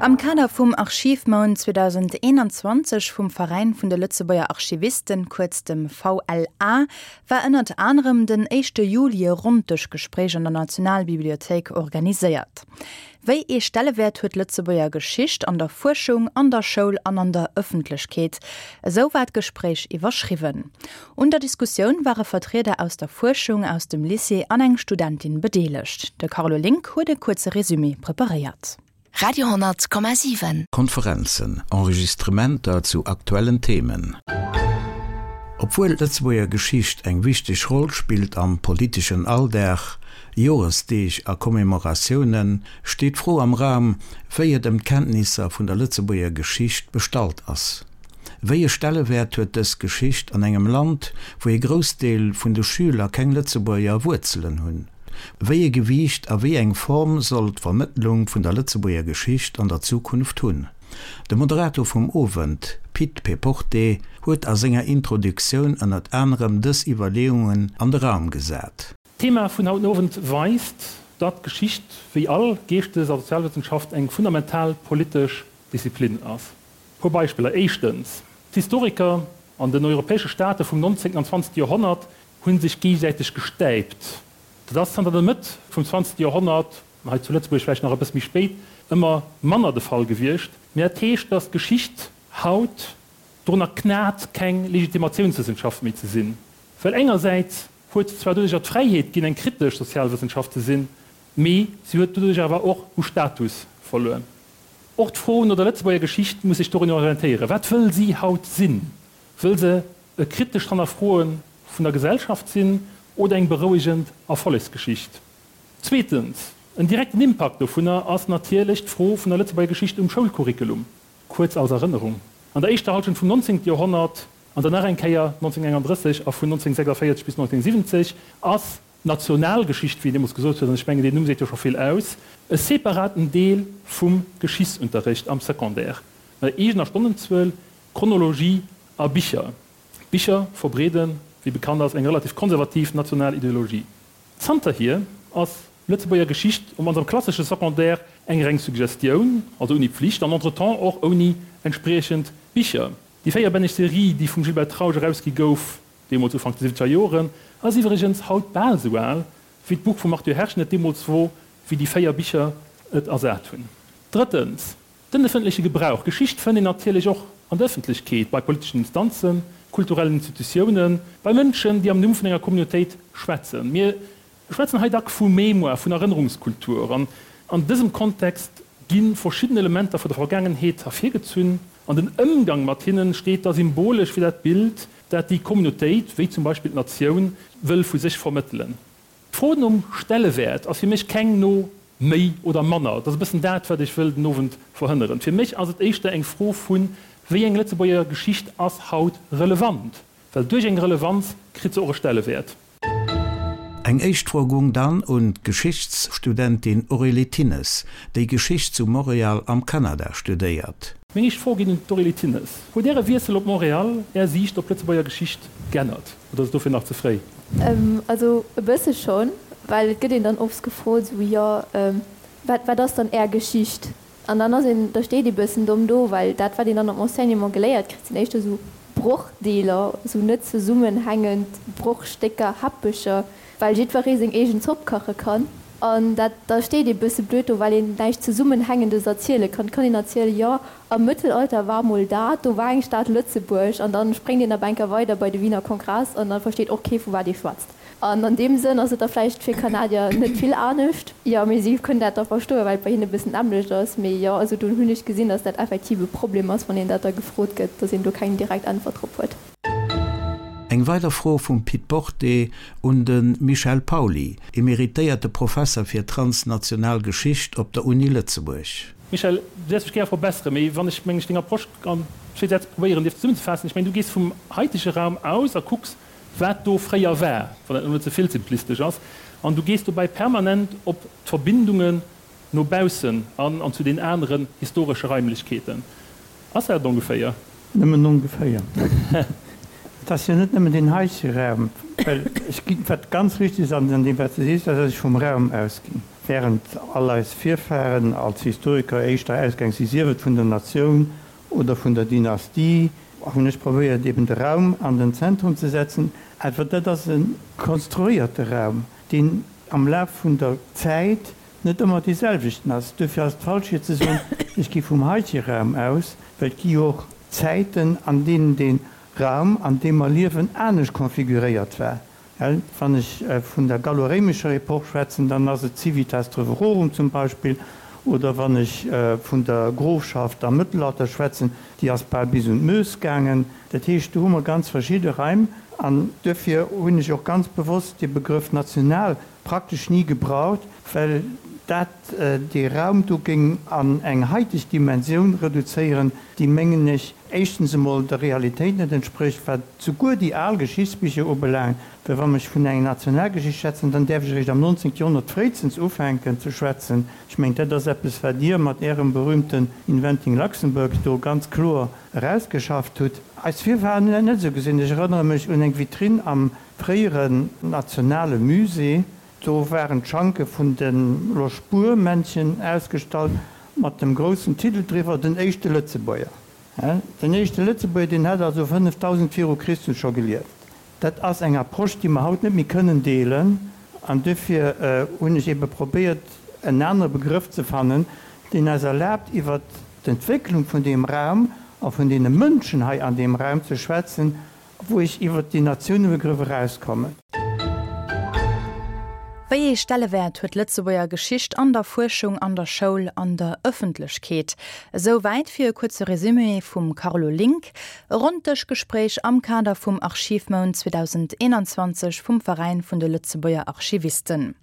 Am Kader vum Archivmount 2021 vum Veräin vun de Lëtzebuerger Archivisten, kuerz dem VLA, war ënnert anerem den éischte Juli e Ronndëschgespréich an der Nationalbibliothéik organiséiert. Wéi ee Stellewäert huet d'Lëtzebuerger Geschicht an der Fuerschung, an der Schoul an an der Ëffentlechkeet? Esou war d'Gespréich iwwerschriwwen. Un der Diskussioun ware Vertrieder aus der Fuerschung, aus dem Lycée an eng Studentin bedeelegt. De Carlo Link huet e kuerze Resumé preparéiert. Radio 10,7. Konferenzen, Enregistrementer zu aktuellen Themen. Obwuel d'Lëtzebuerger Geschicht eng wichteg Roll spillt am politeschen Alldag, Joresdeeg a Commemoratiounen, steet d'Fro am Raum, wéi et ëm d'Kenntnisser vun der Lëtzebuerger Geschicht bestallt ass. Wéi e Stellewäert huet dës Geschicht an engem Land, wou ee Groussdeel vun de Schüler keng Lëtzebuerger Wuerzelen hunn? Wéi e Gewiicht a wéi eng Form soll d'Vermëttlung vun der Lëtzebuerger Geschicht an der Zukunft hunn? De Moderator vum Owend, Pit Péporté, huet a senger Introduktioun ënnert anerem dës Iwwerleeungen an de Raum gesat. D'Thema vun haut den Owend weist, datt Geschicht, wéi all Geeschtes a Sozialwëssenschaft, eng fundamental politesch Disziplin ass. Puer Beispiller, Éischtens, d'Historiker an den europäesche Staate vum 19. an 20. Joerhonnert hu sech géigesäiteg gestäipt. Dat ass zanter der Mëtt vum 20. Joerhonnert, an hei zu Lëtzebuerg vläicht nach e bësse méi spéit, ëmmer manner de Fall gewiescht. Mee dat heescht, datt d'Geschicht haut dorunner knat, keng Legitimatiounswëssenschaft méi ze sinn. Well engersäits huet se zwar doduercher d'Fräiheet ginn, eng kritesch Sozialwëssenschaft ze sinn, mee si huet doduerch awer och u Status verluer. Och d'Fro no der Lëtzebuerger Geschicht muss sech dorun orientéieren. Wat wëll si haut sinn? Wëll se e kritescht Hannerfroe vun der Gesellschaft sinn oder eng berouegend Erfollegsgeschicht? Zweetens, en direkten Impakt dovunner ass natierlech d'Fro vun der Lëtzebuerger Geschicht um Schoulcurriculum. Kuerz als Erënnerung, An der éischter Halschent vum 19. Joerhonnert an dann nach eng Kéier 1931 a vun 1946 bis 1970 ass D'Nationalgeschicht, wéi een deemools gesot huet, an ech mengen, deen Numm seet jo scho vill aus, e separaten Deel vum Geschichtsunterrecht am Secondaire, mat eegener Stonnenzuel, Chronologie a Bicher. D'Bicher verbreeden, wéi bekannt ass, eng relativ konservativ national Ideologie. Zanterhier ass Lëtzebuerger Geschicht op mannst am klassesche Secondaire eng reng Suggestioun, also ouni Pflicht an entretemps och ouni entspriechend Bicher. Déi véierbänneg Serie, déi vum Gilbert Trausch erausgi gouf, deemools Ufank de siwwenzeger Joren, ass iwwregens haut bal esou al, wéi d'Buch vum Arthur Herschen et deemools wor, wéi déi 4 Bicher et ersat hunn. Drëttens, den ëffentleche Gebrauch. Geschicht fënnt een natierlech och an der Ëffentlechkeet, bei politeschen Instanzen, kulturellen Institutiounen, bei Mënschen, déi am Numm vun enger Communautéit schwätzen. Mir schwätzen hei dack vu Mémoire, vun Erënnerungskultur. An an dësem Kontext gi verschidden Elementer vu der Vergaangenheet ervirgezunn an den Ëmgang mat hinnen steet da symbolesch fir dat Bild, dat déi Communautéit, wéi zum Beispill d'Natioun, wëll vu sech vermëttelen. D'Fro nom Stellewäert ass fir mech keng no méi oder manner. Dat ass e bëssen dat, wat ech wëll den Owend verhënneren. Fir mech ass et éischter eng Fro vu wéi eng Lëtzebuerger Geschicht ass haut relevant, well duerch eng Relevanz kritt se och e Stellewäert. Eng éischt Fro gung dann un d'Geschichtsstudentin Aurélie Thinnes, déi Geschicht zu Montréal am Kanada studéiert. Meng éischt Fro geet un d'Aurélie Thinnes. Huet Äre Wiessel op Montréal Är Siicht op d'Lëtzebuerger Geschicht g'ännert oder ass et dofir nach ze fréi? Also e bësse schonn, well et gëtt een dann oft gefrot, esou, jo, wat, wat ass dann Är Geschicht? An dann ass een, da steet ee bëssen domm do, well dat, wat een dann am Enseignement geléiert kritt, sinn éischter esou Brochdeeler, esou net zesummenhängend Brochstécker, Häppecher, well jiddweree seng eegen Zopp kache kann. An dat, da steet ee bësse blöd do, well een näischt Zesummenhängendes erziele kann. Et kann een erzielen, jo, am Mëttelalter war mol dat, do war eng Stad Lëtzebuerg, an dann spréngt een ab enker weider bei de Wiener Kongress an da versteet och kee vu wat ee schwätzt. An an deem Sënn ass et da vläicht fir Kanadier net vill anescht. Jo, mee si kënnen dat da verstoen, well et bei hinne e bëssen d'nämmlecht ass. Mee jo, also do hunn ech gesinn, datt dat effektiv e Problem ass, wann een dat da gefrot gëtt, datt een do keng direkt Äntwert drop huet. Eng weider Fro vum Pit Porté un de Michel Pauly, emeritéierte Professer fir transnational Geschicht op der Uni Lëtzebuerg. Michel, du däerfs mech gär verbesseren, mee wann ech, mengen ech, deng Approche an zwee Sätz probéieren dierf zesummenzefaassen, ech mengen, du gees vum haitege Raum aus a kucks, wat do fréier war, wann dat elo net ze vill simplistesch ass, an du gees dobäi permanent op d'Verbindungen no baussen an an zu den aneren historesche Raimlechkeeten. Ass dat et ongeféier? Nëmmen ongeféier. Et ass jo net nëmmen deen heitege Raum, well ech ginn, wat ganz richtig ass an deem, wat s de sees, ass, datt ech vum Raum ausginn. Während all eis Virfahren als Historiker éischter ausgaang si, sief et vun der Natioun oder vun der Dynastie, hunn ech probéiert eben de Raum an den Zentrum ze setzen. Awer dat ass e konstruéierte Raum, deen am Laf vun der Zäit net ëmmer dee selwechten ass. Duerfir ass et falsch fir ze soen, ech gi vum heitege Raum aus, well et gi jo och Zäiten, an deenen dee Raum, an deem mer liewen, anescht konfiguréiert war. Wann ech vun der gallo-réimescher Epoch schwätzen, dann ass et d'Civitas Treverorum zum Beispill, oder wann ech vun der Grofschaft am Mëttelalter schwätzen, déi ass bal bis un d'Meuse gaangen. Dat heescht, do hu mer ganz verschidde Raim. An duerfir hunn ech och ganz bewosst dee Begrëff national praktesch ni gebraucht, well dat dee Raum do géing an eng haiteg Dimensioun reduzéieren, déi, mengen ech, éischtens emol der Realitéit net entsprécht, wat souguer déi al Geschichtsbicher ubelaangt, well wann ech vun enger Nationalgeschicht schwätzen, dann däerf ech eréischt am 19. Joerhonnert fréistens ufänken ze schwätzen. Ech mengen, dat ass eppes, wat Dir mat Ärem berühmten Inventing Luxembourg do ganz kloer erausgeschafft hutt. Eis Virfahren hunn dat net esou gesinn. Ech erënnere mech un eng Vitrinn am fréieren nationale Musée, do waren d'Schanke vun de Loschbuer-Männchen ausgestallt mat dem groussen Titel driwwer, Den éischte Lëtzebuerger. Den éischte Lëtzebuerger, deen hat also 5000 viru Christus scho gelieft. Dat ass eng Approche, déi mer haut net méi kënnen deelen. An duerfir hunn ech ebe probéiert, en anere Begrëff ze fannen, deen eis erlaabt, iwwert d'Entwécklung vun deem Raum a vun deene Mënschen hei an deem Raum ze schwätzen, wou ech iwwert déi Natiounebegrëff erauskommen. Wéi ee Stellewäert huet d'Lëtzebuerger Geschicht an der Fuerschung, an der Schoul, an der Ëffentlechkeet? Esou wäit fir e kuerze Resumé vum Carlo Link. E Ronndëschgespréich am Kader vum Archivmount 2021 vum Veräin vun de Lëtzebuerger Archivisten.